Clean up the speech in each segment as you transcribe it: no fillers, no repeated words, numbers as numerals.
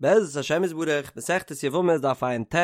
בעזרת השם יתברך, מסכת יבמות דף ע"ט,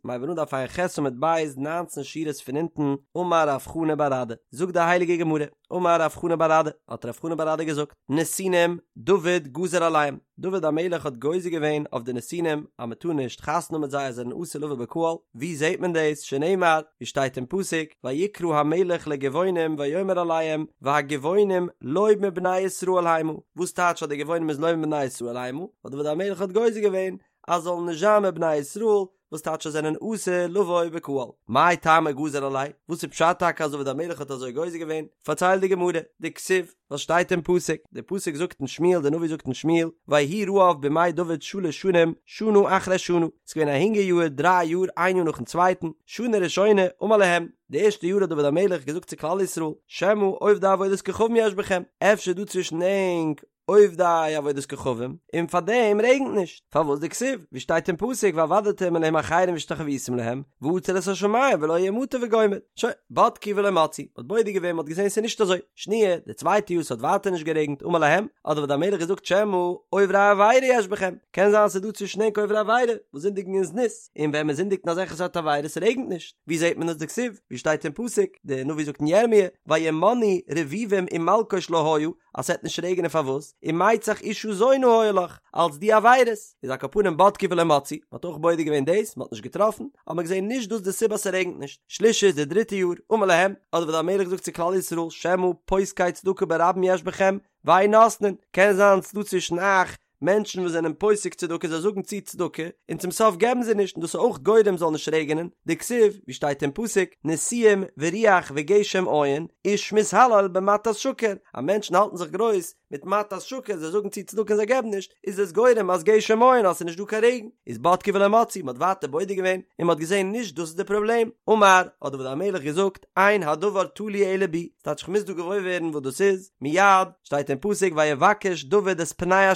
מיר הייבן אן דף ע"ח עמוד ב', ניינצן שורות פון אונטן, אמר רב חנא בר אדא, זאגט די הייליגע גמרא, אמר רב חנא בר אדא, האט רב חנא בר אדא געזאגט, נתינים, דוד גזר עליהם, דוד המלך האט גוזר געווען אויף די נתינים אז מען טאר נישט חתונה האבן מיט זיי אז זיי זענען אסור לבוא בקהל, ווי זעט מען דאס, שנאמר, ווי שטייט אין פסוק, ויקרא המלך לגבעונים ויאמר אליהם, והגבעונים לא מבני ישראל המה, וואס טייטש אז די גבעונים איז לא מבני ישראל המה? ווייל דוד המלך האט גוזר געווען אז זאלן נישט זיין מבני ישראל, וואס טייטש אז זענען אסור לבוא בקהל. מאי טעמא גזר עלייהו? וואס איז פשט טאקע אז דוד המלך האט אזוי גוזר געווען? פארציילט די גמרא, דכתיב, וואס שטייט אין פסוק, די פסוק זאגט אין שמואל, די נביא זאגט אין שמואל, ויהי רעב בימי דוד שלש שנים, שנה אחרי שנה, ס'איז געווען א הונגער יאהר דריי יאר איין יאר נאכן צווייטן, שנה ראשונה אמר להם, די ערשטע יאר האט דוד המלך געזאגט צו כלל ישראל, שמא עובדי עבודת כוכבים יש בכם, אפשר איז דא צווישן ענק עובדי עבודת כוכבים, און פאר דעם רעגנט נישט, פארוואס דכתיב, ווי שטייט אין פסוק ועבדתם אלהים אחרים והשתחויתם להם, ועצר את השמים ולא יהיה מטר וגומר, שוין, בדקו ולא מצאו, מ'האט בודק געווען מ'האט געזען ס'איז נישט אזוי, שניה, די צווייטע יאר ס'האט ווייטער נישט גערעגנט, אמר להם, האט דוד המלך געזאגט שמא עוברי עבירה יש בכם, קען זיין ס'איז דא צווישן ענק עוברי עבירה, וואס זינדיגן אין זנות, און ווען מ'זינדיגט אין אזעלכע סארט עבירות רעגנט נישט, ווי זעט מען עס דכתיב, ווי שטייט אין פסוק, די נביא זאגט אין ירמיה, וימנעו רביבים ומלקוש לא היה, אז ס'עט נישט רעגענען פארוואס? ומצח אשה זונה היה לך, אלץ די עבירות, איז על כל פנים בדקו ולא מצאו, מ'האט אויך בודק געווען דאס, מ'האט נישט געטראפן, האט מען געזען נישט דאס די סיבה אז ס'רעגנט נישט, שלישית די דריטע יאר, אמר להם, האט דוד המלך געזאגט צו כלל ישראל, שמא פוסקי צדקה ברבים יש בכם, ואין נותנין, קען זיין ס'דא צווישן אייך מענטשן וואס זענען פוסק צדקה זיי זאגן צו צדקה און צום סוף געבן זיי נישט און דאס איז אויך גורם זאל נישט רעגענען, דכתיב, ווי שטייט אין פסוק, נשיאים ורוח וגשם אין, איש מתהלל במתת שקר, אז מענטשן האלטן זיך גרויס מיט מתת שקר, זיי זאגן צו צדקה און זיי געבן נישט, איז עס גורם אז גשם אין אז ס'איז נישט דא קיין רעגן, איז בדקו ולא מצאו, מ'האט ווייטער בודק געווען און מ'האט געזען נישט דאס איז די פראבלעם, אמר, האט דוד המלך געזאגט, אין הדבר תלוי אלא בי, ס'טייטש כ'מוז דא געוואויר ווערן וואס דאס איז, מיד, שטייט אין פסוק ויבקש דוד את פני ה',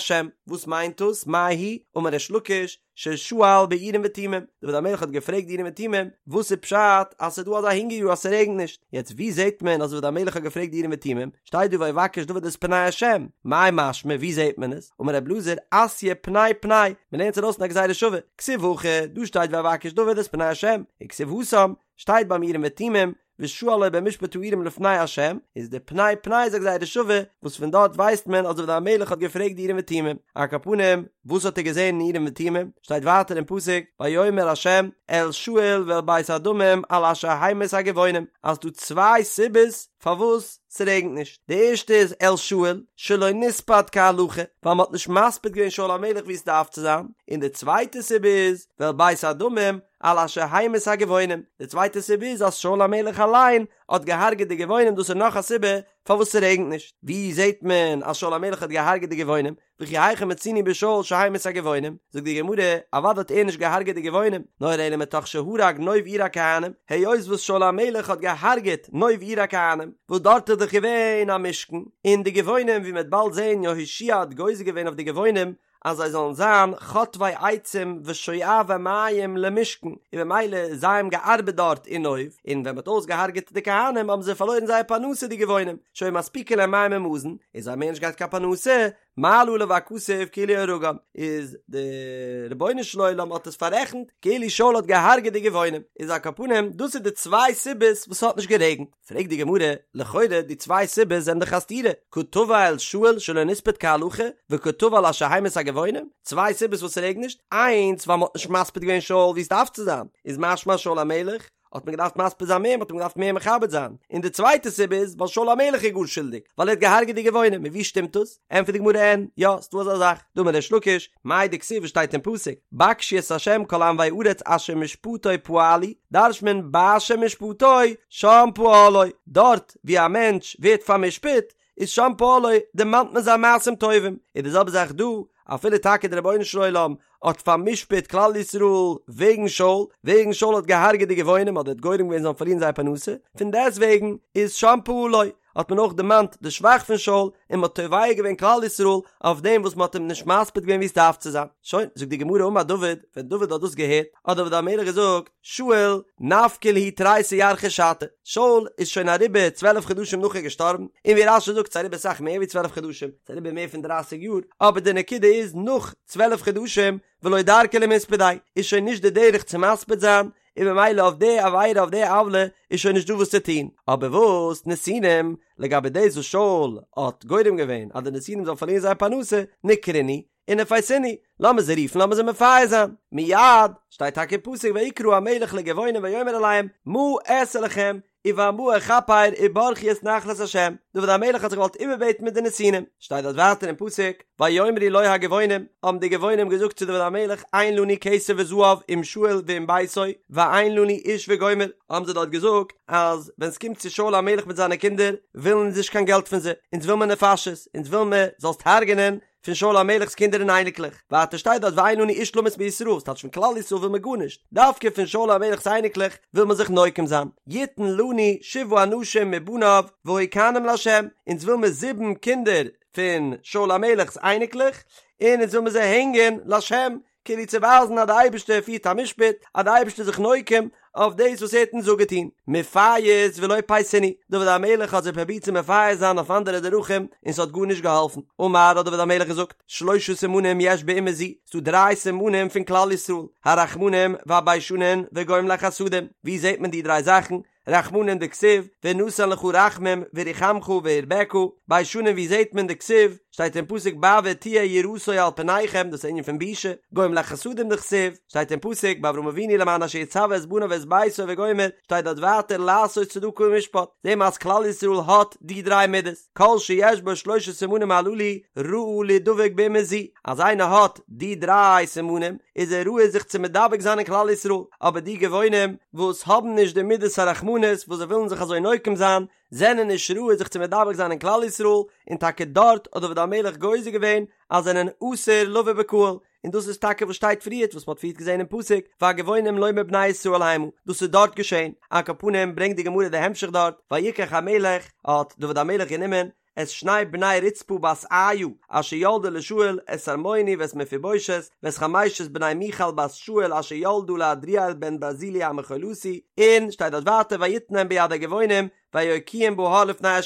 וואס מיינט דאס, מאי היא, אמר ריש לקיש, ששאל באורים ותומים, דוד המלך האט געפרעגט די אורים ותומים, וואס איז פשט אז ס'איז דא אזא הונגער יאר אז ס'רעגנט נישט, יעצט ווי זעט מען אז דוד המלך האט געפרעגט די אורים ותומים, שטייט דא ויבקש דוד את פני ה', מאי משמע ווי זעט מען עס, אמר רב אלעזר, אתיא פני פני, מ'לערנט עס ארויס אין א גזירה שווה, כתיב הכא, דא שטייט ויבקש דוד את פני ה', וכתיב התם, שטייט ביים אורים ותומים, ושאל לו במשפט האורים לפני ה', איז די פני פני איז א גזירה שווה, וואס פון דארט ווייסט מען אז דוד המלך האט געפרעגט די אורים ותומים. על כל פנים, וואס האט ער געזען אין אורים ותומים? שטייט ווייטער אין פסוק, ויאמר ה' אל שאול ואל בית הדמים על אשר המית הגבעונים, אז ס'דא צוויי סיבות פארוואס ס'רעגנט נישט, די ערשטע איז אל שאול, שלא נספד כהלכה, ווייל מ'האט נישט מספיד געווען שאול המלך ווי עס דארף צו זיין, און די צווייטע סיבה איז, ואל בית הדמים, על אשר המית הגבעונים, די צווייטע סיבה איז אז שאול המלך אליין האט געהארגעט די גבעונים דאס איז נאך א סיבה פארוואס ס'רעגנט נישט, ווי זעט מען אז שאול המלך האט געהארגעט די גבעונים? וכי היכא מצינו בשאול שהמית הגבעונים? זאגט די גמרא, אוודאי האט ער נישט געהארגעט די גבעונים, נאר אלא מתוך שהרג נוב עיר הכהנים, היות וואס שאול המלך האט געהארגעט נוב עיר הכהנים, וואס דארט איז דאך געווען א משכן, און די גבעונים ווי מ'וועט באלד זען יהושע האט גוזר געווען אויף די גבעונים אז זיי זאלן זיין חוטבי עצים ושואבי מים למשכן, און במילא זיי האבן געארבעט דארט אין נוב, און ווען מ'האט אויסגעהארגעט די כהנים האבן זיי פארלוירן זייער פרנסה די גבעונים, שהיו מספיקין להם מים ומזון, און זיי האבן מער נישט געהאט קיין פרנסה, מעלה עליו הכתוב כאילו הרגם, איז די רבונו של עולם האט עס פאררעכנט כאילו שאול האט געהארגעט די גבעונים, איז על כל פנים דאס איז די צוויי סיבות וואס ס'האט נישט גערעגנט. פרעגט די גמרא, לכאורה די צוויי סיבות זענען דאך א סתירה, קא תבע אל שאול שלא נספד כהלכה, וקא תבע על אשר המית הגבעונים, צוויי סיבות וואס ס'רעגנט נישט, איינס ווייל מ'האט נישט מספיד געווען שאול ווי עס דארף צו זיין, איז משמע שאול המלך האט מען געדארפט מספיד זיין מער, מ'האט אים געדארפט מער מכבד זיין, און די צווייטע סיבה איז ווייל שאול המלך איז גאר שולדיג, ווייל ער האט געהארגעט די גבעונים, און ווי שטימט דאס? ענטפערט די גמרא אין, יא, ס'דא אזא זאך, דאמר ריש לקיש, מאי דכתיב וואס שטייט אין פסוק, בקשו את ה' כל ענוי ארץ אשר משפטו פעלו, דרש'ט מען באשר משפטו שם פעלו, דארט ווי א מענטש ווערט פאר'משפט, איז שם פעלו, דערמאנט מען זיין מעשים טובים, איז די זעלבע זאך דא, אפילו טאקע דער רבונו של עולם האט פאר'משפט כלל ישראל וועגן שאול, וועגן שאול האט געהארגעט די גבעונים אדער האט גורם געווען זיי זאלן פארלירן זייער פרנסה, פון דעסטוועגן איז שם פעלו. האט מען אויך דערמאנט די שבח פון שאול און מען האט תובע געווען כלל ישראל אויף דעם וואס מען האט אים נישט מספיד געווען ווי עס דארף צו זיין. שוין, זאגט די גמרא אמר דוד, ווען דוד האט דאס געהערט, האט דוד המלך געזאגט, שאול נפקי להו תריסר ירחי שתא, שאול איז שוין אריבער 12 חדשים נאך ער געשטארבן, און ווי רש"י זאגט ס'איז אריבער סאך מער ווי 12 חדשים, ס'איז אריבער מער פון דרייסיג יאר, אבער די נקודה איז נאך 12 חדשים ולא דרכא למספדיה, איז שוין נישט די דרך צו מספיד זיין, און במילא אויף די עבירה אויף די עוולה איז שוין נישט דא וואס צו טון, אבער וואס נתינים, לגבי דאס וואס שאול האט גורם געווען אז די נתינים זאלן פארלירן זייער פרנסה, ניקרינהו, ונפייסינהו, לאמיר זיי רופן לאמיר זיי מפייס זיין, מיד, שטייט טאקע אין פסוק ויקרא המלך לגבעונים ויאמר אליהם מה אעשה לכם ובמה אכפר וברכו את נחלת ה', דוד המלך האט זיך געוואלט איבערבעטן מיט די נתינים, שטייט דארט ווייטער אין פסוק ויאמרו לו הגבעונים, האבן די גבעונים געזאגט צו דוד המלך אין לנו כסף וזהב עם שאול ועם ביתו ואין לנו איש וגומר, האבן זיי דארט געזאגט אז ווען ס'קומט צו שאול המלך מיט זיינע קינדער ווילן אונז נישט קיין געלט פון זיי, אונז וויל מיר נפשות, אונז וויל מיר זאלסט הרג'נען פון שאול המלך'ס קינדער און אייניקלעך, ווייטער שטייט דארט ואין לנו איש למות מישראל, ס'טייטש פון כלל ישראל וויל מען גארנישט, דווקא פון שאול המלך'ס אייניקלעך וויל מען זיך נוקם זיין, יתן לנו שבעה אנשים מבניו והוקענום לה', אונז וויל מיר זיבן קינדער פון שאול המלך'ס אייניקלעך, און אונז וויל מיר זיי הענגען לה', כאילו צו ווייזן אז די אייבערשטער פירט א משפט, אז די אייבערשטער איז זיך נוקם אויף דאס וואס ער האט אונז אפגעטון. מפייס ולא פייסינהו, דוד המלך האט זיי פרובירט צו מפייס זיין אויף אנדערע דרכים און ס'האט גארנישט געהאלפן. אמר האט דוד המלך געזאגט, שלשה סימנים יש באומה זו, ס'דא דריי סימנים פון כלל ישראל, הרחמנים והביישנים וגומלי חסדים, וואו זעט מען די דריי זאכן? רחמנים דכתיב, ונתן לך רחמים ורחמך והרבך, ביישנים ווי זעהט מען דכתיב, שטייט אין פסוק בעבור תהיה יראתו על פניכם, דאס איז ענין פון בושה, גומלי חסדים דכתיב, שטייט אין פסוק ביי אברהם אבינו למען אשר יצוה את בניו ואת ביתו וגומר, שטייט דארט ווייטער לעשות צדקה ומשפט, זעהן מיר אז כלל ישראל האט די דריי מידות, כל שיש בו שלשה סימנים הללו ראוי לידבק באומה זו, אז איינער האט די דריי סימנים איז ער ראוי זיך צו מדבק זיין אין כלל ישראל, אבער די גבעונים וואס האבן נישט די מידת הרחמנות וואס זיי ווילן זיך אזוי נוקם זיין, זענען נישט ראוי זיך צו מדבק זיין אין כלל ישראל, און טאקע דארט האט דוד המלך גוזר געווען אז זענען אסור לבוא בקהל, און דאס איז טאקע וואס שטייט פריערט וואס מ'האט פריערט געזען אין פסוק והגבעונים לא מבני ישראל המה, דאס איז דארט געשען, על כל פנים ברענגט די גמרא די המשך דארט, ויקח המלך, האט דוד המלך גענומען, את שני בני רצפה בת איה אשר ילדה לשאול את ארמוני ואת מפיבושת ואת חמשת בני מיכל בת שאול אשר ילדה לעדריאל בן ברזילי המחולתי, און שטייט דארט ווייטער ויתנם ביד הגבעונים ויוקיעום בהר לפני ה',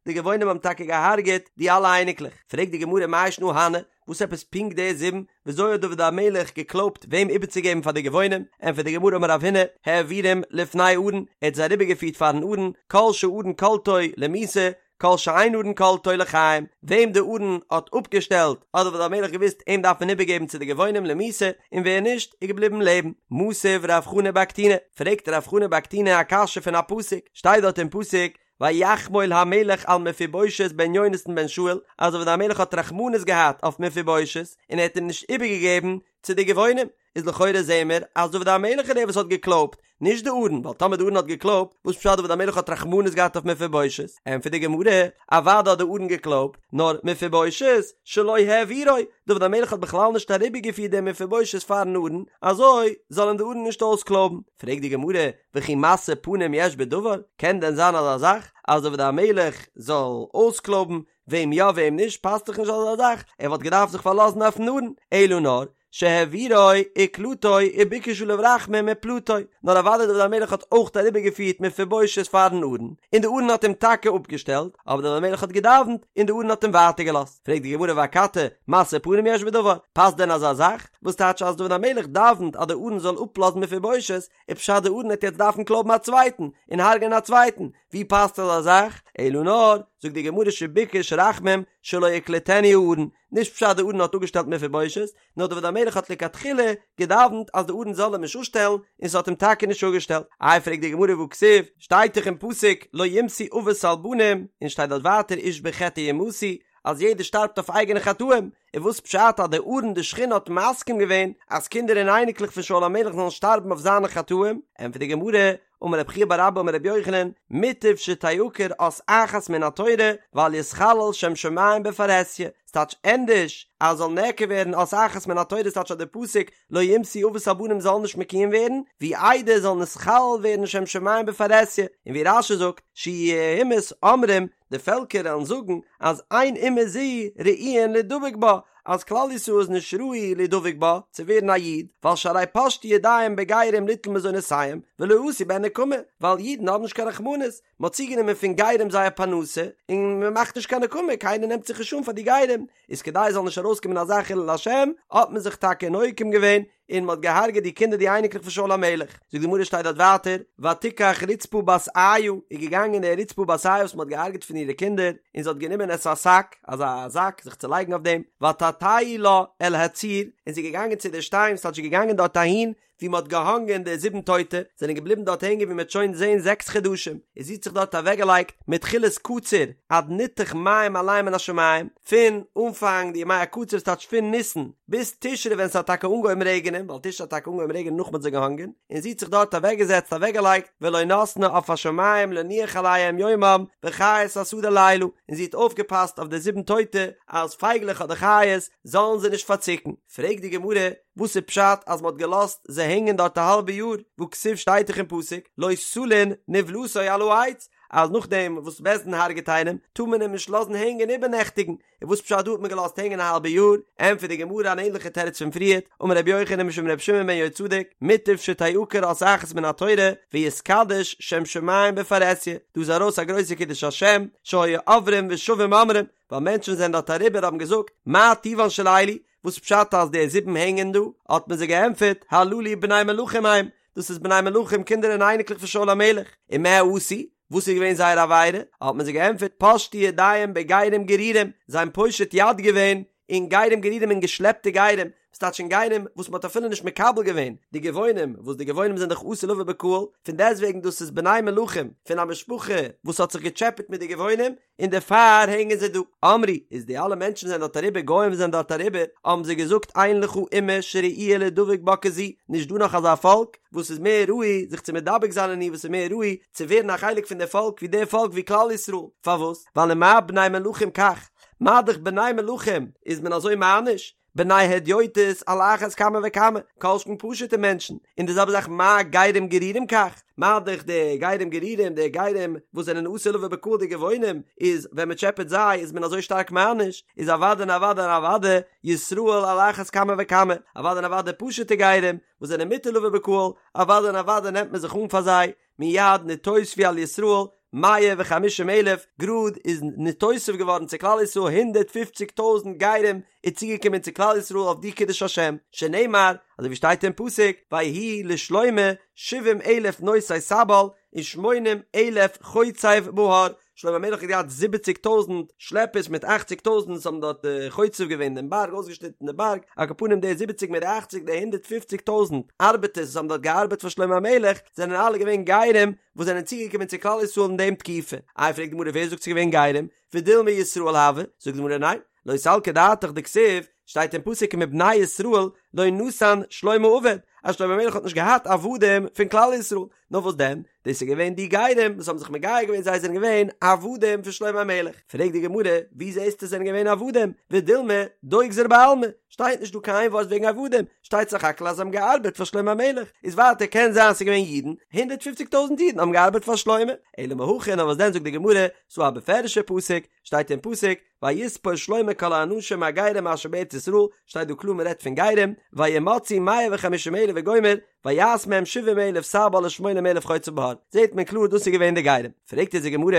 די גבעונים האבן טאקע געהארגעט די אלע אייניקלעך, פרעגט די גמרא מאי שנא הני, וואס עפעס פונקט די זיבן, וויאזוי האט דוד המלך געקלויבט וועם איבערצוגעבן פאר די גבעונים, ענטפערט די גמרא אמר רב הונא, העבירם לפני ארון, ער האט זיי אריבערגעפירט פארן ארון, כל שארון קולטו למיתה, כל שאין ארון קולטו לחיים, וועם די ארון האט אפגעשטעלט, האט דוד המלך געוואוסט אים דארף מען איבערגעבן צו די גבעונים למיתה, און ווער נישט, איז געבליבן לעבן. מתיב רב חנא בר קטינא, פרעגט רב חנא בר קטינא א קשיא פון א פסוק, שטייט דארט אין פסוק, ויחמול המלך על מפיבושת בן יונתן בן שאול, אז דוד המלך האט רחמנות געהאט אויף מפיבושת, און ער האט אים נישט איבערגעגעבן צו די גבעונים, איז לכאורה זעהן מיר אז דוד המלך איז דער וואס האט געקלויבט, נישט די ארון, ווייל טאמער די ארון האט געקלויבט, וואס פשט דוד המלך האט רחמנות געהאט אויף מפיבושת? ענטפערט די גמרא, אוודאי האט די ארון געקלויבט, נאר מפיבושת שלא העבירו, דוד המלך האט בכלל נישט אריבערגעפירט דעם מפיבושת פארן ארון, אזוי זאל אים די ארון נישט אויסקלויבן. פרעגט די גמרא, וכי משוא פנים יש בדבר? קען דען זיין אזא זאך אז דוד המלך זאל אויסקלויבן וועם יא וועם נישט, פאסט דאך נישט אזא זאך, ער וואלט געדארפט זיך פארלאזן אויפן ארון, אלא נאר שהעבירו וקלטו וביקש עליו רחמים ופלטו, נאר אוודאי דוד המלך האט אויך אריבערגעפירט מפיבושת פארן ארון, און די ארון האט אים טאקע אפגעשטעלט, אבער דוד המלך האט געדאווענט און די ארון האט אים ווייטער געלאזט. פרעגט די גמרא ואכתי משוא פנים יש בדבר, פאסט דען אזא זאך? וואס טייטש אז דוד המלך דאווענט אז די ארון זאל אפלאזן מפיבושת, איז פשט די ארון וועט יעצט דארפן קלויבן א צווייטן און הרג'ענען א צווייטן, ווי פאסט אזא זאך? אלא נאר, זאגט די גמרא שביקש רחמים שלא יקלטנו הארון, נישט פשט די ארון האט אפגעשטעלט מפיבושת, נאר דוד המלך האט לכתחילה געדאווענט אז די ארון זאל אים נישט אפשטעלן, און ס'האט אים טאקע נישט אפגעשטעלט. איי פרעגט די גמרא והכתיב, שטייט דאך אין פסוק לא יומתו אבות על בנים, און שטייט דארט ווייטער איש בחטאו יומתו, אז יעדער שטארבט אויף אייגענע חטאים, און וואס פשט אז די ארון די שכינה האט מסכים געווען אז קינדער און אייניקלעך פון שאול המלך זאלן שטארבן אויף זיינע חטאים? ענטפערט די גמרא, אמר רב חייא בר אבא אמר רבי יוחנן, מוטב שתעקר אות אחת מן התורה ואל יתחלל שם שמים בפרהסיא, ס'טייטש ענדערש אז זאל נעקר ווערן אות אחת מן התורה ס'טייטש אז די פסוק לא יומתו אבות על בנים זאל נישט מקוים ווערן, ווי איידער זאל נתחלל ווערן שם שמים בפרהסיא, און ווי רש"י זאגט, שיהו אומות אומרים. די פעלקער וועלן זאגן אז אין אומה זו ראויין לידבק בה, אז כלל ישראל איז נישט ראוי לידבק בה, צו ווערן א איד, ווייל שהרי פשטו ידיהם בגרים ליטול מזונותיהם, ולא עשו בהן נקמה, ווייל אידן האבן נישט קיין רחמנות, מען האט צוגענומען פון גרים זייער פרנסה, און מען מאכט נישט קיין נקמה, קיינער נעמט זיך נישט אן פאר די גרים, איז כדי עס זאל נישט ארויסקומען אזא חילול השם, האט מען זיך טאקע נוקם געווען, און מען האט געהארגעט די קינדער די אייניקלעך פון שאול המלך. זאגט די גמרא שטייט דארט ווייטער, ותקח רצפה בת איה, איז געגאנגען די רצפה בת איה וואס מען האט געהארגעט פון אירע קינדער, און זי האט גענומען את השק, אזא זאק, זיך צו לייגן אויף דעם, ותטהו לה אל הצור, און זי איז געגאנגען צו די שטיין, ס'טייטש זי איז געגאנגען דארט אהין, ווי מען האט געהאנגען די זיבן טויטע, זענען געבליבן דארט הענגען ווי מען וועט שוין זען זעקס חדשים, און זי האט זיך דארט אוועקגעלייגט מתחילת קציר עד ניתך מים עליהם מן השמים, פון אנפאנג די ימי הקציר ס'טייטש פון ניסן ביז תשרי ווען ס'האט טאקע אנגעהויבן רעגענען, ווייל תשרי האט טאקע אנגעהויבן רעגענען נאך מען האט זיי געהאנגען, און זי האט זיך דארט אוועקגעזעצט אוועקגעלייגט ולא נתנה עוף השמים לנוח עליהם יומם וחית השדה לילה, און זי האט אויפגעפאסט אויף די זיבן טויטע אז פייגלעך אדער חיות זאלן זיי נישט פארציקן. פרעגט די גמרא, וואס איז פשט אז מ'האט געלאזט זיי הענגען דארט א האלבע יאר, והכתיב שטייט דאך אין פסוק לא תלין נבלתו על העץ, אז נאכדעם וואס בית דין הרג'ט איינעם טאר מען אים נישט לאזן הענגען איבערנעכטיגן, און וואס פשט דא האט מען געלאזט הענגען א האלבע יאר? ענטפערט די גמרא אן ענליכע תירוץ פון פריערט, אמר רבי יוחנן משום רבי שמעון בן יהוצדק, מוטב שתעקר אות אחת מן התורה ויתקדש שם שמים בפרהסיא, דא איז ארויס א גרויסע קידוש השם, שהיו עוברים ושבים אומרים, ווייל מענטשן זענען דארט אריבער האבן געזאגט, מה טיבן של אלו, וואס פשט אז די זיבן הענגען דא? האט מען זיי געענטפערט, הללו בני מלכים הם, דאס איז בני מלכים קינדער און אייניקלעך פון שאול המלך, ומה עשו? וואס איז געווען זייער עבירה? האט מען זיי געענטפערט, פשטו ידיהם בגרים גרורים, זיי האבן פושט יד געווען אין גרים גרורים אין געשלעפטע גרים, וואס טייטש אין גרים וואס מען האט אפילו נישט מקבל געווען די גבעונים, וואס די גבעונים זענען דאך אסור לבוא בקהל, פון דעסטוועגן דאס איז בני מלכים פון א משפחה וואס האט זיך געטשעפעט מיט די גבעונים, און דערפאר הענגען זיי דא. אמרו, איז די אלע מענטשן זענען דארט אריבער, גוים וואס זענען דארט אריבער, האבן זיי געזאגט אין לך אומה שראויה לידבק בה כזו, נישט דא נאך אזא פאלק וואס איז מער ראוי זיך צו מדבק זיין אין איר, וואס איז מער ראוי צו ווערן א חלק פון די פאלק ווי די פאלק ווי כלל ישראל, פארוואס? ווייל ומה בני מלכים כך, מה דאך בני מלכים איז מען אזוי מעניש, בני הדיוטות על אחת כמה וכמה, כל שכן פשוטע מענטשן, און די זעלבע זאך מה גרים גרורים כך, מה דאך די גרים גרורים, די גרים וואס זענען אסור לבוא בקהל די גבעונים, איז ווען מען טשעפעט זיי איז מען אזוי שטארק מעניש, איז אוודאי און אוודאי און אוודאי ישראל על אחת כמה וכמה, אוודאי און אוודאי פשוטע גרים וואס זענען מותר לבוא בקהל, אוודאי און אוודאי נעמט מען זיך אן פאר זיי, מיד נתוספו על ישראל מאה וחמישים אלף, גראד איז נתוסף געווארן צו כלל ישראל הונדערט פופציג טויזנט גרים איז צוגעקומען צו כלל ישראל אויף די קידוש השם, שנאמר, אזוי ווי שטייט אין פסוק, ויהי לשלמה שבעים אלף נושאי סבל ושמונים אלף חוצב בהר, שלמה המלך האט געהאט זיבעציג טויזנט שלעפערס מיט אכציג טויזנט וואס האבן דארט חוצב געווען דעם בארג אויסגעשניטן די בארג, על כל פנים די זיבעציג מיט די אכציג די הונדערט פופציג טויזנט ארבעטערס וואס האבן דארט געארבעט פאר שלמה המלך זענען אלע געווען גרים וואס זענען צוגעקומען צו כלל ישראל אין דעם תקופה. איי פרעגט די גמרא ווער זאגט ס'איז געווען גרים? ודילמא ישראל הוו, זאגט די גמרא ניין, לא סלקא דעתך דכתיב, שטייט אין פסוק ומבני ישראל לא נתן שלמה עבד, אז שלמה המלך האט נישט געהאט עבדים פון כלל ישראל, נאר וואס דען, דאס איז געווען די גרים וואס האבן זיך מגייר געווען זיי זענען געווען עבדים פון שלמה המלך, פרעגט די גמרא, ווי זעסטו זענען געווען עבדים, ודילמא דוגזר בעלמא, שטייט נישט דא קיין ווארט וועגן עבדים, שטייט סך הכל אז זיי האבן געארבעט פאר שלמה המלך, איז ווייטער קען זיין ס'איז געווען אידן, הונדערט פופציג טויזנט אידן האבן געארבעט פאר שלמה, אלא מהכא נאר וואס דען זאגט די גמרא, ס'דא א בפירוש'ע פסוק, שטייט אין פסוק, ויספר שלמה כל האנשים הגרים אשר בארץ ישראל, שטייט דא קלאר מען רעדט פון גרים, וימצאו מאה וחמישים אלף וגומר, ויעש מהם שבעים אלף סבל ושמונים אלף חוצב בהר, זעט מען קלאר דאס איז געווען די גרים, פרעגט אונז די גמרא,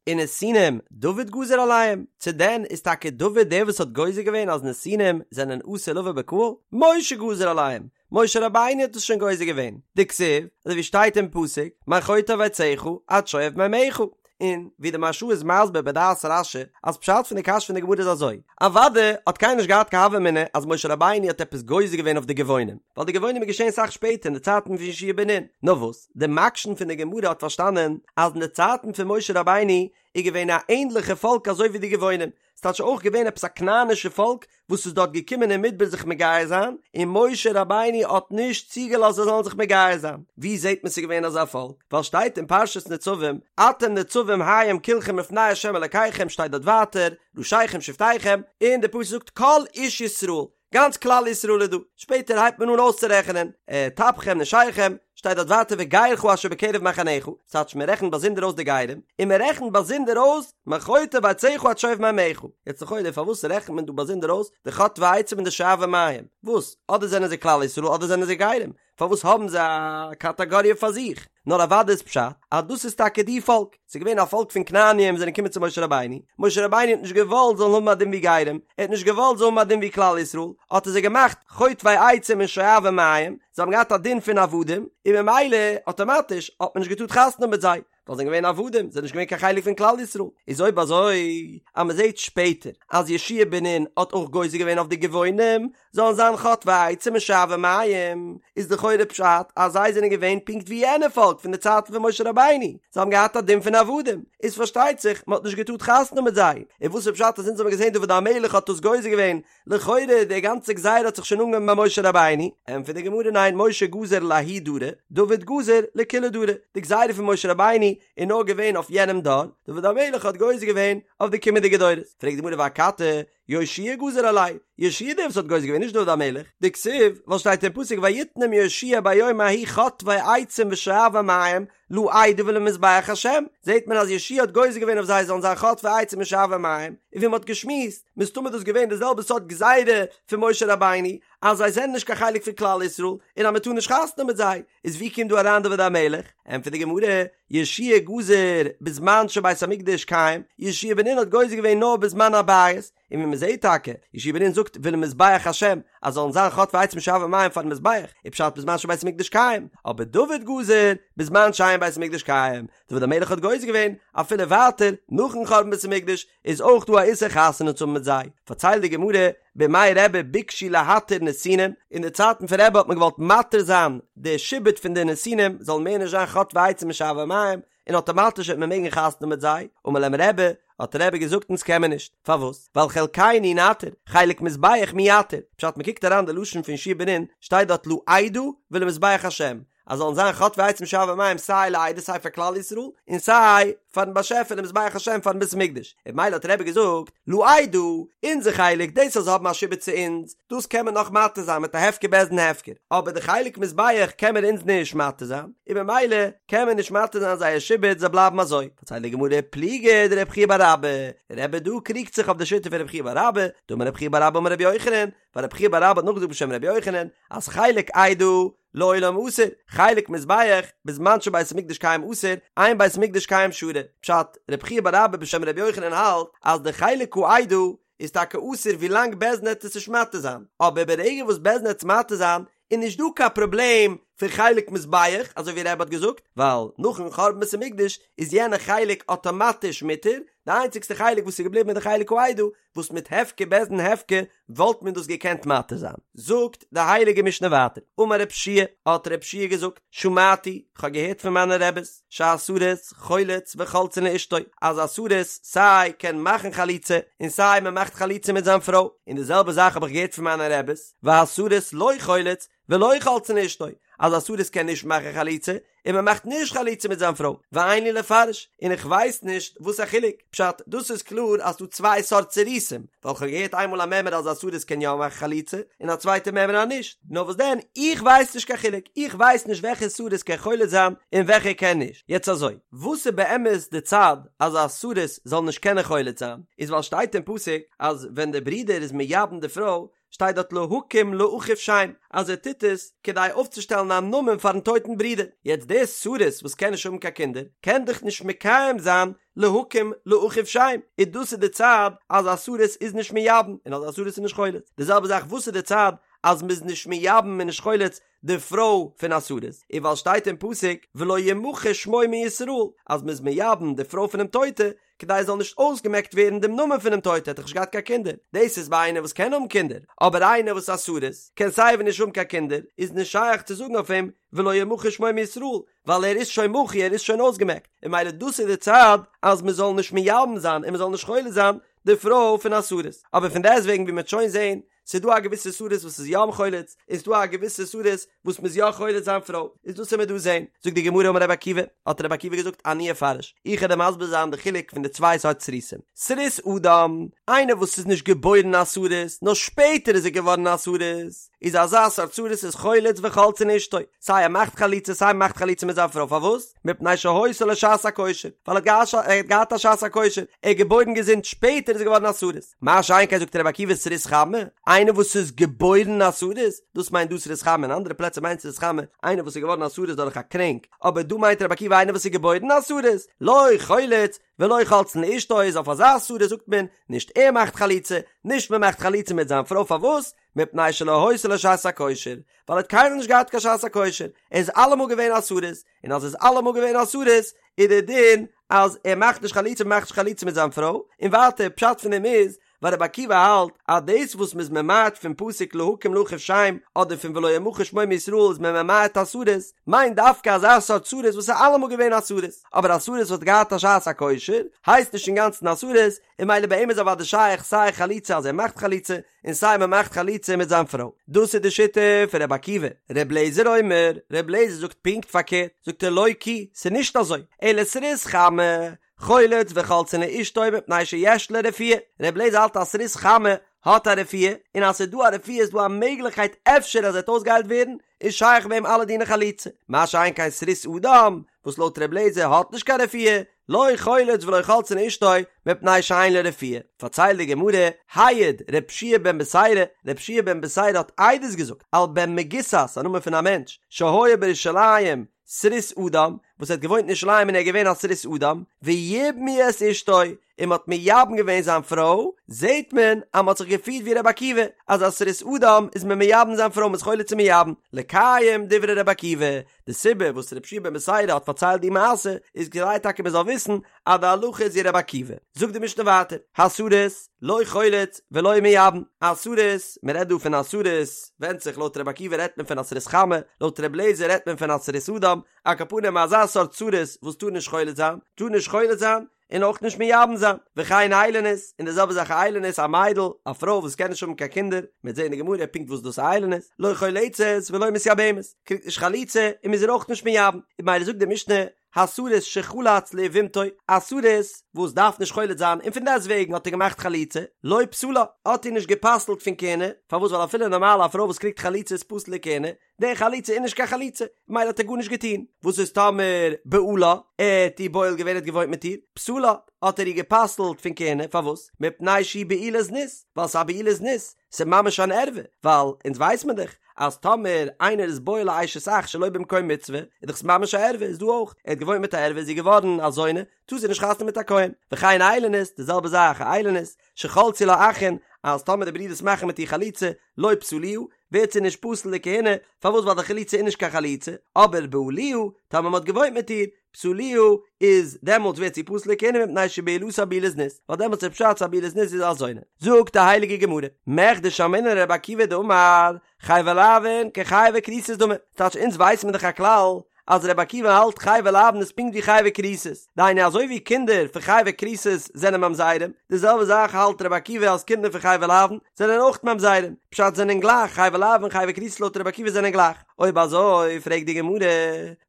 ונתינים דוד גזר עליהם, צו דען איז טאקע דוד דער וואס האט גוזר געווען אז נתינים זענען אסור לבוא בקהל, משה גזר עליהם, משה רבינו האט עס שוין גוזר געווען, דכתיב, אזוי ווי שטייט אין פסוק, מחוטב עציך עד שואב מימיך, און ווי די מהרש"א איז מסביר בדעת רש"י, אז פשט פון די קשיא פון די גמרא איז אזוי, אוודאי האט קיינער נישט געהאט קיין הוה אמינא אז משה רבינו האט עפעס גוזר געווען אויף די גבעונים, ווייל די גבעונים איז געשען אסאך שפעטער אין די צייטן פון יהושע בן נון, נאר וואס, די מקשן פון די גמרא האט פארשטאנען אז אין די צייטן פון משה רבינו איז געווען א ענדליכע פאלק אזוי ווי די גבעונים, ס'טייטש אויך געווען עפעס א כנענישע פאלק וואס איז דארט געקומען אין מדבר זיך מגייר זיין, און משה רבינו האט נישט צוגעלאזט זיי זאלן זיך מגייר זיין. ווי זעט מען ס'איז געווען אזא פאלק? ווייל שטייט אין פרשת נצבים, אתם נצבים היום כלכם לפני ה' אלקיכם שטייט דארט ווייטער, ראשיכם שבטיכם, און די פסוק זאגט כל איש ישראל, גאנץ כלל ישראל איז דא, שפעטער הייבט מען אן אויסצורעכענען, טפכם נשיכם, שטייט דארט ווייטער וגרך אשר בקרב מחניך, ס'טייטש מען רעכנט באזונדער אויס די גרים, און מען רעכנט באזונדער אויס מחוטב עציך עד שואב מימיך. יעצט לכאורה פארוואס רעכנט מען דא באזונדער אויס די חוטבי עצים און די שואבי מים? וואס? אדער זענען זיי כלל ישראל אדער זענען זיי גרים? פארוואס האבן זיי א קאטאגאריע פאר זיך? נאר אוודאי איז פשט אז דאס איז טאקע די פאלק, ס'איז געווען א פאלק פון כנעניים וואס זענען געקומען צו משה רבינו, משה רבינו האט נישט געוואלט זאלן האבן א דין ווי גרים, ער האט נישט געוואלט זאלן האבן א דין ווי כלל ישראל, האט ער זיי געמאכט חוטבי עצים און שואבי מים, זיי האבן געהאט א דין פון עבדים, און ממילא אטאמאטיש האט מען נישט געטארט חתונה האבן מיט זיי. ווייל זיי זענען געווען עבדים, זיי זענען נישט געווען קיין חלק פון כלל ישראל. איז אויב אזוי, אז מען זעט שפעטער אז יהושע בן נון האט אויך גוזר געווען אויף די גבעונים זאלן זיין חוטבי עצים און שואבי מים, איז לכאורה פשט אז זיי זענען געווען פונקט ווי יענע פאלק פון די צייטן פון משה רבינו, זיי האבן געהאט א דין פון עבדים, איז פארשטייט זיך מען האט נישט געטארט חתונה מיט זיי. און וואס איז פשט אז אונז האבן געזען דוד המלך האט דאס גוזר געווען לכאורה די גאנצע גזירה האט זיך שוין אנגעהויבן ביי משה רבינו, ענטפערט די גמרא ניין משה גזר לההוא דרא, דוד גזר לכולהו דרי, די גזירה פון משה רבינו איז נאר געווען אויף יענעם דור, דוד המלך האט גוזר געווען אויף די קומענדיגע דורות, פרעגט די גמרא ואכתי, יהושע גזר עלייהו, יהושע דער וואס האט גוזר געווען נישט דוד המלך, דכתיב, ווייל שטייט אין פסוק ויתנם יהושע ביום ההוא חוטבי עצים ושואבי מים, לעדה ולמזבח השם, זעט מען אז יהושע האט גוזר געווען אויף זיי זאלן זיין חוטבי עצים און שואבי מים, און ווי מען האט געשמועסט, מסתמא איז דאס געווען די זעלבע סארט גזירה פון משה רבינו, אז זיי זענען נישט קיין חלק פון כלל ישראל, און אז מען טאר נישט חתונה מיט זיי, איז ווי קומט דא אריין דוד המלך? ענטפערט די גמרא, יהושע גזר בזמן שבית המקדש קיים, יהושע בן נון האט גוזר געווען נאר בזמן הבית, און ווי מען זעט טאקע, יהושע בן נון זאגט ולמזבח השם, אז זאלן זיין חוטבי עצים ושואבי מים פארן מזבח, איז פשט בזמן שבית המקדש קיים, אבער דוד גזר בזמן שאין בית המקדש קיים, דוד המלך האט גוזר געווען, אפילו ווייטער, נאכן חורבן בית המקדש, איז אויך דא א איסור חתונה צו האבן מיט זיי. פארציילט די גמרא, בימי רבי ביקשו להתיר נתינים, אין די צייטן פון רבי האט מען געוואלט מתיר זיין די שעבוד פון די נתינים, זאלן מער נישט זיין חוטבי עצים ושואבי מים, און אטאמאטיש וועט מען מעגן חתונה מיט זיי, אמר להם רבי, האט רבי געזאגט אונז קען מען נישט, פארוואס? ווייל חלקינו נתיר, חלק מזבח מי יתיר, פשט מען קוקט אריין די לשון פון יהושע בן נון, שטייט דארט לעדה ולמזבח השם, אז זאלן זיין חוטבי עצים ושואבי מים סיי לעדה סיי פאר כלל ישראל, און סיי פארן באשעפער למזבח השם פארן בית המקדש, און ממילא האט רבי געזאגט, לעדה, אונזער חלק, דאס אז זיי האבן א שעבוד צו אונז, דאס קען מען נאך מתיר זיין מיט א הפקר בית דין הפקר, אבער די חלק מזבח קען מען אונז נישט מתיר זיין, און ממילא קען מען נישט מתיר זיין זייער שעבוד זיי בלייבן אזוי. פארציילט די גמרא פליגא דרב חייא בר אבא, רבי דא קריגט זיך אויף די שיטה פון רב חייא בר אבא, דאמר רב חייא בר אבא אמר רבי יוחנן, ווייל רב חייא בר אבא האט נאכגעזאגט בשם רבי יוחנן, אז חלק עדה לעולם אסור, חלק מזבח בזמן שבית המקדש קיים אסור, אין בית המקדש קיים שרי. פשט, רב חייא בר אבא בשם רבי יוחנן האלט אז די חלק העדה איז טאקע אסור ווילאנג בית דין עט עס נישט מתיר זיין, אבער ברגע וואס בית דין עט עס מתיר זיין איז נישט דא קיין פראבלעם פון חלק מזבח אזוי ווי רבי האט געזאגט, ווייל נאכן חורבן בית המקדש איז יענע חלק אטאמאטיש מותר, די איינציגסטע חלק וואס איז געבליבן איז די חלק העדה וואס מיט הפקר בית דין הפקר וואלט מען דאס געקענט מתיר זיין. זאגט די הייליגע משנה ווייטער, אמר רב שיע, האט רב שיע געזאגט, שמעתי, כ'האב געהערט פון מיינע רעבעס, שהסריס חולץ וחולצין לאשתו, אז א סריס סיי קען מאכן חליצה און סיי מען מאכט חליצה מיט זיין פרוי, און די זעלבע זאך האב איך געהערט פון מיינע רעבעס, והסריס לא חולץ ולא חולצין לאשתו, אז א סריס קען נישט מאכן חליצה, און מען מאכט נישט חליצה מיט זיין פרוי, ואין לי לפרש, און איך ווייס נישט וואס א חילוק, פשט, דאס איז קלאר אז ס'דא צוויי סארט סריסים, ווייל כ'האב געהערט איינמאל א מימרא אז א סריס קען יא מאכן חליצה, און א צווייטע מימרא אז נישט, נאר וואס דען, איך ווייס נישט קיין חילוק, איך ווייס נישט וועלכע סריס קען חולץ זיין און וועלכע קען נישט, יעצט אזוי, וואס איז באמת די צד אז א סריס זאל נישט קענען חולץ זיין, איז ווייל שטייט אין פסוק אז ווען דער ברודער איז מייבם די פרוי, שטייט דארט להקים לאחיו שם אז ער טוט עס כדי אויפצושטעלן א נאמען פארן טויטן ברודער, יעצט דער סריס וואס קען נישט האבן קיין קינדער קען דאך נישט מקיים זיין להקים לאחיו שם, און דאס איז די צד אז א סריס איז נישט מייבם און אז א סריס איז נישט חולץ, די זעלבע זאך וואס איז די צד אז מ'איז נישט מייבם און נישט חולץ די פרוי פון א סריס, איז ווייל שטייט אין פסוק ולא ימחה שמו מישראל אז מ'איז מייבם די פרוי פונעם טויטע כדי עס זאל נישט אויסגעמעקט ווערן דעם נאמען פונעם טויטע האט דאך נישט געהאט קיין קינדער, דאס איז ביי איינער וואס קען האבן קינדער, אבער איינער וואס א סריס קען סייווי נישט האבן קיין קינדער איז נישט שייך צו זאגן אויף אים ולא ימחה שמו מישראל ווייל ער איז שוין מחוי ער איז שוין אויסגעמעקט, און ממילא דאס איז די צד אז מען זאל נישט מייבם זיין און מען זאל נישט חולץ זיין די פרוי פון א סריס, אבער פון דעסטוועגן ווי מען וועט שוין זען. ס'איז דא א געוויסע סריס וואס איז יא חולץ, און ס'איז דא א געוויסע סריס וואס מ'איז יא חולץ זיין פרוי, איז דאס וועט מען דא זען. זאגט די גמרא אמר רבי עקיבא, האט רבי עקיבא געזאגט אני אפרש, איך וועל דיר מסביר זיין די חילוק פון די צוויי סארט סריסים, סריס אדם, איינער וואס איז נישט געבוירן א סריס, נאר שפעטער איז ער געווארן א סריס, איז אזא סארט סריס איז חולץ וחולצין אשתו, סיי ער מאכט חליצה סיי מ'מאכט חליצה מיט זיין פרוי, פארוואס? מפני שהיתה לו שעת הכושר, ווייל ער האט געהאט א שעת הכושר, ער איז געבוירן געזונט, שפעטער איז ער געווארן א סריס. מה שאין כן זאגט רבי עקיבא סריס חמה, איינער וואס איז געבוירן א סריס, דאס מיינט דא סריס חמה, אין אנדערע פלעצער מיינט סריס חמה איינער וואס איז געווארן א סריס דורך א קרענק, אבער דא מיינט רבי עקיבא איינער וואס איז געבוירן א סריס, לא חולץ ולא חולצין לאשתו איז אויף אזא סריס זאגט מען, נישט ער מאכט חליצה, נישט מען מאכט חליצה מיט זיין פרוי פארוואס? מפני שלא היתה לו שעת הכושר, ווייל ער האט קיינמאל נישט געהאט קיין שעת הכושר, ער איז אלעמאל געווען א סריס, און אז ער איז אלעמאל געווען א סריס, איז דער דין אז ער מאכט נישט חליצה מען מאכט נישט חליצה מיט זיין פרוי, און ווייטער פשט פון דעם איז, ווייל רבי עקיבא האלט אז דאס וואס מ'איז ממעט פון פסוק להקים לאחיו שם אדער פון ולא ימחה שמו מישראל איז מען ממעט א סריס, מיינט דווקא אזא סארט סריס וואס איז אלעמאל געווען א סריס, אבער א סריס וואס האט געהאט א שעת הכושר הייסט נישט אינגאנצן א סריס, און ממילא ביי אים איז אוודאי שייך סיי חליצה אז ער מאכט חליצה, און סיי מען מאכט חליצה מיט זיין פרוי. דאס איז די שיטה פון רבי עקיבא. ר' לעזער אומר, ר' לעזער זאגט פונקט פארקערט, זאגט ער לא כי, ס'איז נישט אזוי, אלא סריס חמה, חולץ וחולצין לאשתו מפני שיש לו רפואה. ר' לעזער האלט אז סריס חמה האט א רפואה, און אז ס'איז דא א רפואה איז דא א מעגליכקייט אפשר אז ער וועט אויסגעהיילט ווערן, איז שייך ביי אים אלע דיני חליצה. מה שאין כן סריס אדם, וואס לויט ר' לעזער האט נישט קיין רפואה, לא חולץ ולא חולצין לאשתו מפני שאין לו רפואה, פארציילט די גמרא, העיד ר' יהושע בן בתירא, ר' יהושע בן בתירא האט עדות געזאגט על בן מגוסת, א נאמען פון א מענטש, שהיה בירושלים סריס אדם, וואס האט געוואוינט אין ירושלים און ער איז געווען א סריס אדם, ויבמו את אשתו, און מען האט מייבם געווען זיין פרוי, זעט מען אז מען האט זיך געפירט ווי ר' עקיבא, אז א סריס אדם איז מען מייבם זיין פרוי, מען איז חולץ און מייבם, לקיים דברי ר' עקיבא, די סיבה וואס ר' יהושע בן בתירא האט פארציילט די מעשה איז כדי טאקע מען זאל וויסן אז די הלכה איז ווי ר' עקיבא. זאגט די משנה ווייטער, הסריס לא חולץ ולא מייבם, א סריס, מען רעדט דא פון א סריס, ווענדט זיך לויט ר' עקיבא רעדט מען פון א סריס חמה, לויט ר' לעזער רעדט מען פון א סריס אדם, על כל פנים אזא סארט סריס וואס טאר נישט חולץ זיין, טאר נישט חולץ זיין, און אויך נישט מייבם זיין, וכן איילונית, און די זעלבע זאך א איילונית, א מיידל, א פרוי וואס קען נישט האבן קיין קינדער, מ'וועט זען אין די גמרא פונקט וואס דאס איילונית, לא חולצת ולא מתייבמת, קריגט נישט חליצה און מ'איז איר אויך נישט מייבם, און ממילא זאגט די משנה, הסריס שחלץ ליבמתו, א סריס וואס דארף נישט חולץ זיין און פון דעסטוועגן האט ער געמאכט חליצה, לא פסלה, האט איר נישט גע'פסל'ט פון כהונה, פארוואס ווייל אפילו נארמאל א פרוי וואס קריגט חליצה איז פסול לכהונה, די חליצה איז נישט קיין חליצה, ממילא האט ער גארנישט געטון. וואס איז טאמער בעלה, ער האט איר בועל געווען, ער האט געוואוינט מיט איר, פסלה, האט ער איר גע'פסל'ט פון כהונה, פארוואס? מפני שהיא בעילת זנות, ווייל ס'איז א בעילת זנות, ס'איז ממש אן ערווה, ווייל אונז ווייס מען דאך אז טאמער איינער איז בועל א אשת אח שלא במקום מצוה, איז דאך עס ממש א ערווה, איז דא אויך, ער האט געוואוינט מיט א ערווה איז זי געווארן א זונה, טאר זי נישט חתונה מיט א כהן. וכן איילונית, די זעלבע זאך א איילונית, שחלצו לה אחין, אז טאמער די ברידערס מאכן מיט איר חליצה, לא פסלוה, ווערט זי נישט פסול לכהונה, פארוואס ווייל די חליצה איז נישט קיין חליצה, אבער בעלוה, טאמער מ'האט געוואוינט מיט איר, פסלוה, איז דעמאלטס ווערט זי פסול לכהונה מפני שבעילתה בעילת זנות, ווייל דעמאלטס איז פשט ס'איז א בעילת זנות זי איז א זונה. זאגט די הייליגע גמרא, מכדי שמעינן לרבי עקיבא דאמר, חייבי לאוין כחייבי כריתות דמי, ס'טייטש אונז ווייסן מיר דאך א כלל אז רבי עקיבא האלט חייבי לאוין איז פונקט ווי חייבי כריתות, דהיינו אזוי ווי קינדער פון חייבי כריתות זענען ממזרים, די זעלבע זאך האלט רבי עקיבא אז קינדער פון חייבי לאוין זענען אויך ממזרים, פשט זענען גלייך, חייבי לאוין און חייבי כריתות לויט רבי עקיבא זענען גלייך, אויב אזוי פרעגט די גמרא,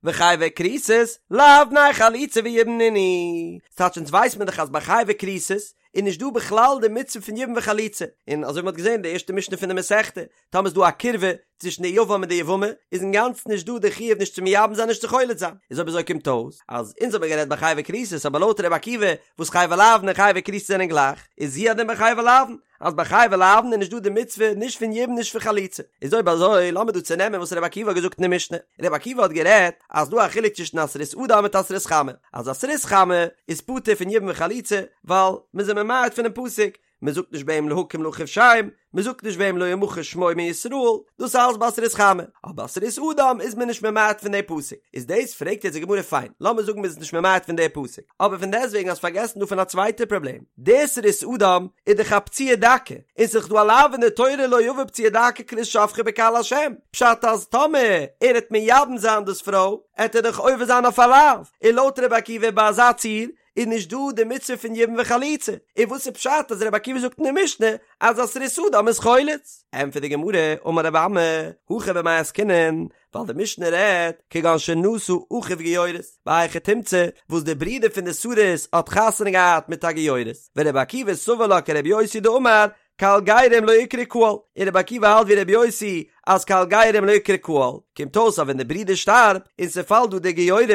וחייבי כריתות לאו בני חליצה ויבום נינהו, ס'טייטש אונז ווייסט מען דאך אז ביי חייבי כריתות איז נישט דא בכלל די מצוה פון יבום וחליצה, און אזוי ווי מ'האט געזען אין די ערשטע משנה פון די מסכתא, טאמער איז דא א קירבה צווישן די יבם און די יבמה, איז אינגאנצן נישט דא די חיוב נישט צו מייבם זיין נישט צו חולץ זיין, איז אויב אזוי קומט אויס אז אונז האבן גערעדט ביי חייבי כריתות אבער לויט ר' עקיבא וואס חייבי לאוין און חייבי כריתות זענען גלייך, איז הוא הדין ביי חייבי לאוין, אז ביי חייבי לאוין איז נישט דא די מצוה נישט פון יבום נישט פון חליצה, איז אויב אזוי לאמיר דא צונעמען וואס ר' עקיבא האט געזאגט אין די משנה, ר' עקיבא האט גערעדט אז דא א חילוק צווישן א סריס אדם מיט א סריס חמה, אז א סריס חמה איז פטור פון יבום וחליצה ווייל מ'איז אים ממעט פונעם פסוק, מען זאגט נישט ביי אים להקים לאחיו שם, מען זאגט נישט ביי אים לא ימחה שמו מישראל, דאס אלעס ביי א סריס חמה, אבער ביי א סריס אדם איז מען נישט ממעט פון די פסוק, איז דאס פרעגט יעצט די גמרא פיין, לאמיר זאגן מען איז נישט ממעט פון די פסוק, אבער פון דעסטוועגן האסט פארגעסן דא פון א צווייטע פראבלעם, די סריס אדם איז דאך א פצוע דכא, און ס'איז דאך דא א לאו אין די תורה לא יבא פצוע דכא כרות שפכה בקהל השם, פשט אז טאמער ער העט מייבם זיין דאס פרוי, העט ער דאך עובר זיין אויף א לאו, און לויט רבי עקיבא ביי אזא ציור. איז נישט דא די מצוה פון יבום וחליצה, און וואס איז פשט אז רבי עקיבא זאגט אין די משנה אז א סריס אדם איז חולץ? ענטפערט די גמרא, אמר רבי אמי, הכא במאי עסקינן, ווייל די משנה רעדט כגון שנשא אחיו גיורת, בהיכי תמצא וואס די ברודער פון די סריס האט חתונה געהאט מיט א גיורת, ורבי עקיבא סבר לה כרבי יוסי דאמר קהל גרים לא איקרי קהל, און רבי עקיבא האלט ווי רבי יוסי אז קהל גרים לא איקרי קהל, קומט אויס אז ווען די ברודער שטארבט און ס'פאלט דא די גיורת,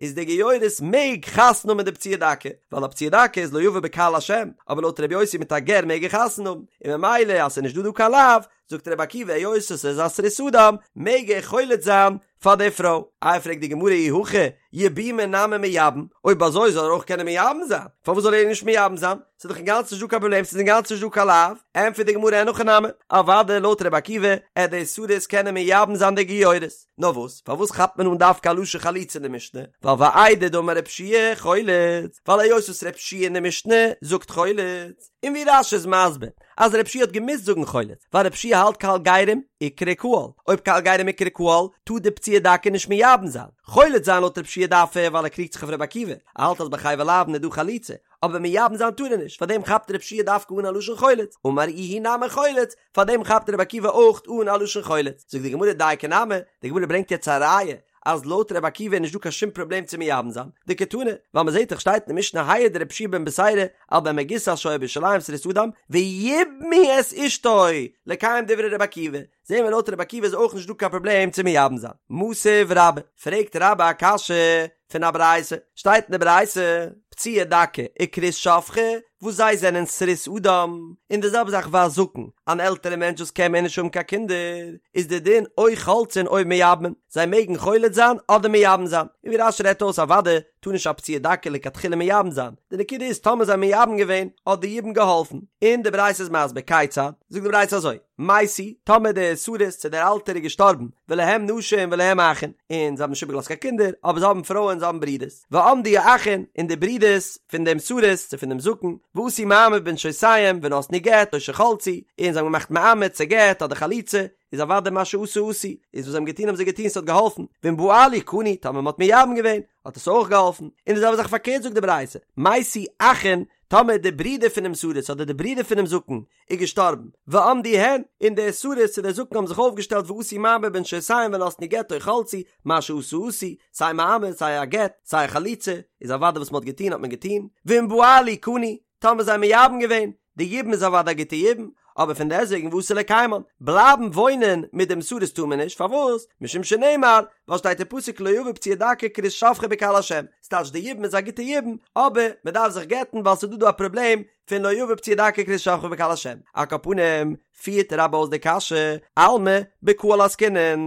איז די גיורת מעג חתונה האבן מיט די פצוע דכא, ווייל א פצוע דכא איז לא יבא בקהל השם, אבער לויט רבי יוסי מיט א גר מעג ער חתונה האבן, און ממילא אז ס'איז נישט דא דא קיין לאו, זאגט רבי עקיבא היות עס איז א סריס אדם מעג ער חולץ זיין פאר די פרוי. איי פרעגט די גמרא אי הכי יבומי נמי מייבם, אויב אזוי זאל ער אויך קענען מייבם זיין, פארוואס זאל ער נישט מייבם זיין, ס'איז דאך אינגאנצן נישט דא קיין פראבלעם ס'איז אינגאנצן נישט דא קיין לאו, ענטפערט די גמרא אין הכי נמי, אוודאי לויט רבי עקיבא עט די סריס קענען מייבם זיין די גיורת, נאר וואס פארוואס כאפט מען אן דווקא א לשון חליצה אין די משנה, ווייל ואיידי דאמר רב שיע חולץ, ווייל היות וואס רב שיע אין די משנה זאגט חולץ, און ווי רש"י איז מסביר אז רב שיע האט געמוזט זאגן חולץ, ווייל רב שיע האלט קהל גרים איקרי קהל, אויב קהל גרים איקרי קהל, טאר די פצוע דכא נישט מייבם זיין. חולץ זיין לויט רב שיע דארף ער ווייל ער קריגט זיך אויף רבי עקיבא, ער האלט אז ביי חייבי לאוין איז דא חליצה, אבער מייבם זיין טאר ער נישט, פארדעם כאפט רב שיע דווקא אן א לשון חולץ, אמר איהו נמי חולץ, פארדעם כאפט רבי עקיבא אויך אן א לשון חולץ. זאגט די גמרא דייקא נמי, די גמרא ברענגט יעצט א ראיה אז לויט רבי עקיבא איז נישט דא קיין שום פראבלעם צו מייבם זיין, דקתני, ווייל מען זעט דאך שטייט אין די משנה העיד רבי יהושע בן בתירא על בן מגוסת שהיה בירושלים סריס אדם ויבמו את אשתו לקיים דברי רבי עקיבא, זעהן מיר לויט רבי עקיבא איז אויך נישט דא קיין פראבלעם צו מייבם זיין. מתיב רבה, פרעגט רבה א קשיא פון א ברייתא, שטייט אין די ברייתא, פצוע דכא וכרות שפכה, וואס זיי זענען סריס אדם, און די זעלבע זאך והזקן, אן עלטערע מענטש וואס קען מער נישט האבן קיין קינדער, איז די דין או חולצין או מייבמין, זיי מעגן חולץ זיין אדער מייבם זיין, און ווי רש"י רעדט אויס אוודאי טאר נישט א פצוע דכא לכתחילה מייבם זיין, די נקודה איז טאמער זיי מייבם געווען האט די יבום געהאלפן, און די ברייתא איז מסביר כיצד, זאגט די ברייתא אזוי, מתו, טאמער דער סריס צו דער אלטער איז געשטארבן, ולהם נשים ולהם אחין, און זיי האבן נישט איבערגעלאזט קיין קינדער, אבער זיי האבן פרויען זיי האבן ברידערס, ועמדו האחין, און די ברידערס פון דעם סריס צו פון דעם זקן, ועשו מאמר בנשותיהם ונתנו גט או שחלצו, און זיי האבן געמאכט מאמר צו גט אדער חליצה, איז אוודאי מה שעשו עשו, איז וואס זיי האבן געטון האבן זיי געטון ס'האט געהאלפן, ואם בעלו קנו, טאמער מ'האט מייבם געווען, האט עס אויך געהאלפן, און די זעלבע זאך פארקערט זאגט די ברייתא, מתו אחין, טאמער די ברידער פונעם סריס אדער די ברידער פונעם זקן איז געשטארבן, ועמדו הן, און דער סריס צו דער זקן האבן זיך אויפגעשטעלט ועשו מאמר בנשותיהם ונתנו גט או חלצו, מה שעשו עשו, סיי מאמר סיי א גט, סיי א חליצה, איז אוודאי וואס מ'האט געטון האט מען געטון, ואם בעלו קנו, טאמער זיי מייבם געווען, די יבום איז אוודאי א גוטע יבום, אבער פון דעסטוועגן ואסור לקיימן, בלייבן וואוינען מיט דעם סריס טאר מען נישט, פארוואס? משום שנאמר, ווייל שטייט אין פסוק לא יבא פצוע דכא וכרות שפכה בקהל השם, ס'טייטש די יבום איז א גוטע יבום, אבער מ'דארף זיך גט'ן ווייל ס'איז דא דא א פראבלעם פון לא יבא פצוע דכא וכרות שפכה בקהל השם. על כל פנים, פירט רבה אויס די קשיא, אלמא בקהל עסקינן,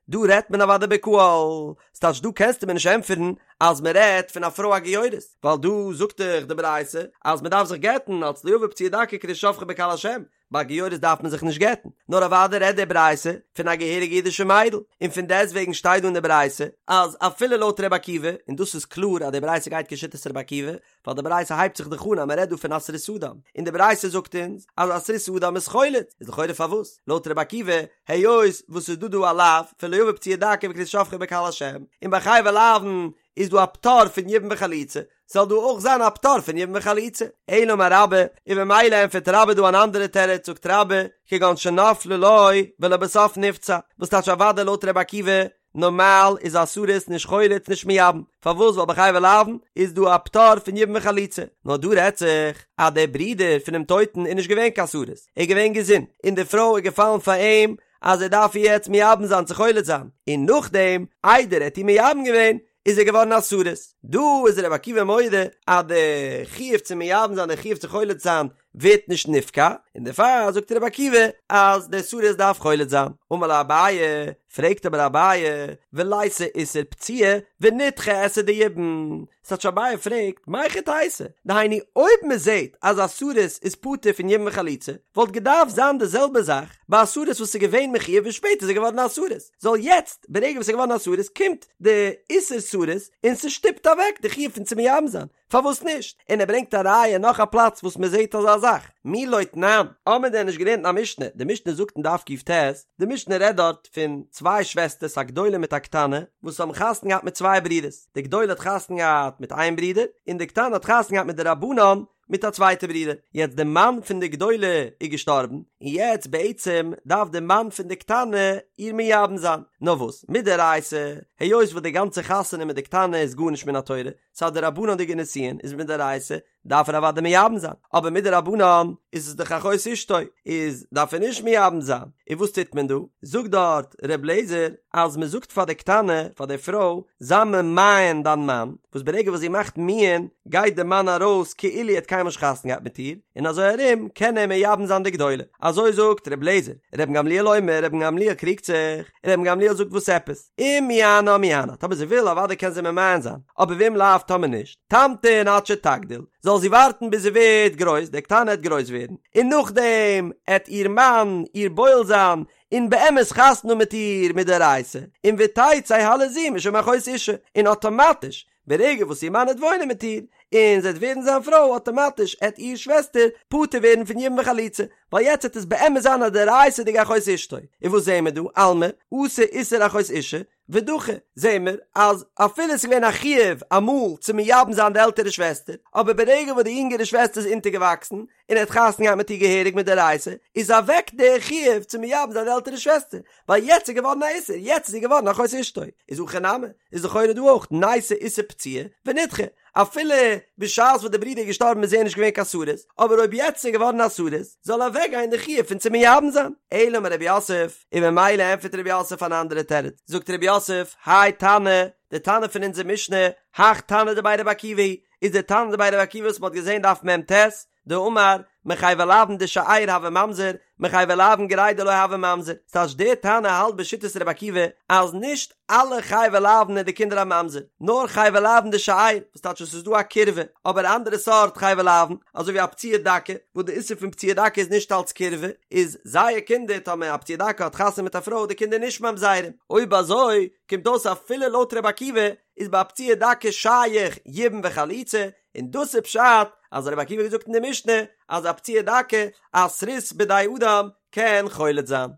דא רעדט מען אוודאי בקהל, ס'טייטש דא קענסטו מיר נישט ענטפערן אז מען רעדט פון א פרוי א גיורת, ווייל דא זאגט דאך די ברייתא אז מען דארף זיך גט'ן אלץ לא יבא פצוע דכא וכרות שפכה בקהל השם, ביי גיורת דארף מען זיך נישט גט'ן, נאר אוודאי רעדט די ברייתא פון א געהעריגע אידישע מיידל, און פון דעסטוועגן שטייט דא אין די ברייתא אז אפילו לויט ר' עקיבא, און דאס איז קלאר אז די ברייתא גייט כשיטת ר' עקיבא, ווייל די ברייתא הייבט זיך דאך אן אז מען רעדט דא פון א סריס אדם, און די ברייתא זאגט אונז אז א סריס אדם איז חולץ, איז לכאורה פארוואס לויט רבי עקיבא, היות וואס ס'איז דא דא א לאו פון לא יבא פצוע דכא וכרות שפכה בקהל השם, און ביי חייבי לאוין איז דא א פטור פון יבום וחליצה, זאל דא אויך זיין א פטור פון יבום וחליצה. אלא אמר רבה, און במילא ענטפערט רבה דא אן אנדערע תירוץ, זאגט רבה, כגון שנפלה לו ולבסוף נפצע, וואס טייטש אוודאי לויט רבי עקיבא, נארמאל איז א סריס נישט חולץ נישט מייבם, פארוואס ווייל ביי חייבי לאוין איז דא א פטור פון יבום וחליצה, נאר דא רעדט זיך אז דער ברודער פונעם טויטן איז נישט געווען קיין סריס, ער איז געווען געזונט, און די פרוי איז געפאלן פאר אים אז ער דארף איר יעצט מייבם זיין צו חולץ זיין, און נאכדעם איידער ער האט איר מייבם געווען איז ער געווארן א סריס, דא איז רבי עקיבא מודה אז די חיוב צו מייבם זיין די חיוב צו חולץ זיין ווערט נישט נפקע, און דערפאר זאגט רבי עקיבא אז דער סריס דארף חולץ זיין. אמר ליה אביי, פרעגט אבער אביי, וליתי איסור פציעה ונידחה עשה דיבום, ס'טייטש אביי פרעגט, מהיכי תיתי, דהיינו אויב מען זעט אז א סריס איז פטור פון יבום וחליצה, וואלט געדארפט זיין די זעלבע זאך ביי א סריס וואס איז געווען מחויב און שפעטער איז ער געווארן א סריס, זאל יעצט ברגע וואס ער איז געווארן א סריס קומט די איסור סריס און ס'שטופט אוועק די חיוב פון צו מייבם זיין. פארוואס נישט? און ער ברענגט א ראיה נאך א פלאץ וואס מען זעט אזא זאך, מי לא תנן, האמיר דען נישט געלערנט אין א משנה, די משנה זאגט אין דף ק"ט, די משנה רעדט דארט פון צוויי שוועסטערס א גדולה מיט א קטנה, וואס האבן חתונה געהאט מיט צוויי ברידערס, די גדולה האט חתונה געהאט מיט איין ברודער, און די קטנה האט חתונה געהאט מדרבנן מיט א צווייטע ברודער, יעצט די מאן פון די גדולה איז געשטארבן, און יעצט בעצם דארף די מאן פון די קטנה איר מייבם זיין, נאר וואס, מדאורייתא, היות וואס די גאנצע חתונה מיט די קטנה איז גארנישט מן התורה, ס'איז א דרבנן'דיגע נישואין, איז מדאורייתא דארף ער אוודאי מייבם זיין, אבער מדרבנן איז עס דאך אחות אשתו, איז דארף ער נישט מייבם זיין, און וואס טוט מען דא? זאגט דארט ר' לעזער אז מען זאגט פאר די קטנה, פאר די פרוי, זיי ממאן דיין מאן, וואס ברגע וואס זי מאכט מיאון גייט די מאן ארויס כאילו ער האט קיינמאל נישט חתונה געהאט מיט איר, און אזוי ארום קען ער מייבם זיין די גדולה. אזוי זאגט ר' לעזער. רבן גמליאל אומר, רבן גמליאל קריגט זיך, רבן גמליאל זאגט וואס עפעס? אם מיאנה מיאנה, טאמער זי וויל אוודאי קען זי ממאן זיין, אבער ואם לאו טאמער נישט, תמתין עד שתגדיל, זאל זי ווארטן ביז זי ווערט גרויס, די קטנה עט גרויס ווערן, און נאכדעם עט איר מאן איר בועל זיין, און באמת חתונה מיט איר מדאורייתא, און ותצא הלזו משום אחות אשה, און אטאמאטיש ברגע וואס איר מאן עט וואוינען מיט איר, און זי עט ווערן זיין פרוי, אטאמאטיש עט איר שוועסטער פטור ווערן פון יבום וחליצה, ווייל יעצט עט עס באמת זיין א דאורייתא'דיגע אחות אשתו. און וואס זעהן מיר דא? אלמא, אתי איסור אחות אשה, ודחי, זעהן מיר אז אפילו עס איז געווען א חיוב אמאל צו מייבם זיין די עלטערע שוועסטער, אבער ברגע וואס די יונגערע שוועסטער איז אונטערגעוואקסן, און ער האט חתונה געהאט מיט איר געהעריג מדאורייתא, איז אוועק דער חיוב צו מייבם זיין די עלטערע שוועסטער, ווייל יעצט איז געווארן א איסור, יעצט איז זי געווארן אחות אשתו, איז הכא נמי, איז לכאורה דא אויך ניתי איסור פצועה ונדחה, אפילו בשעת וואס די ברודער איז געשטארבן איז ער נישט געווען קיין סריס, אבער אויב יעצט איז ער געווארן א סריס, זאל אוועק גיין די חיוב פון צו מייבם זיין. אלא אמר רב יוסף, און ממילא ענטפערט רב יוסף אן אנדערע תירוץ, זאגט רב יוסף, האי תנא, די תנא פון אונזער משנה, הך תנא דבי רבי עקיבא היא, איז דער תנא דבי רבי עקיבא וואס מ'האט געזען דף מ"ט, דאמר, מחייבי לאוין דשאר הוי ממזר, מחייבי לאוין גרידא לא הוי ממזר, ס'טייטש דער תנא האלט בשיטת רבי עקיבא אז נישט אלע חייבי לאוין איז די קינדער א ממזר, נאר חייבי לאוין דשאר, וואס טייטש עס איז דא א קירבה, אבער אנדערע סארט חייבי לאוין, אזוי ווי א פצוע דכא, וואס די איסור פון פצוע דכא איז נישט אלץ קירבה, איז זייער קינדער, טאמער א פצוע דכא האט חתונה מיט א פרוי די קינדער נישט ממזרים, אויב אזוי קומט אויס אפילו לויט רבי עקיבא איז ביי א פצוע דכא שייך יבום וחליצה, און דאס איז פשט אז רבי עקיבא האט געזאגט אין די משנה אז א פצוע דכא א סריס בידי אדם קען חולץ זיין.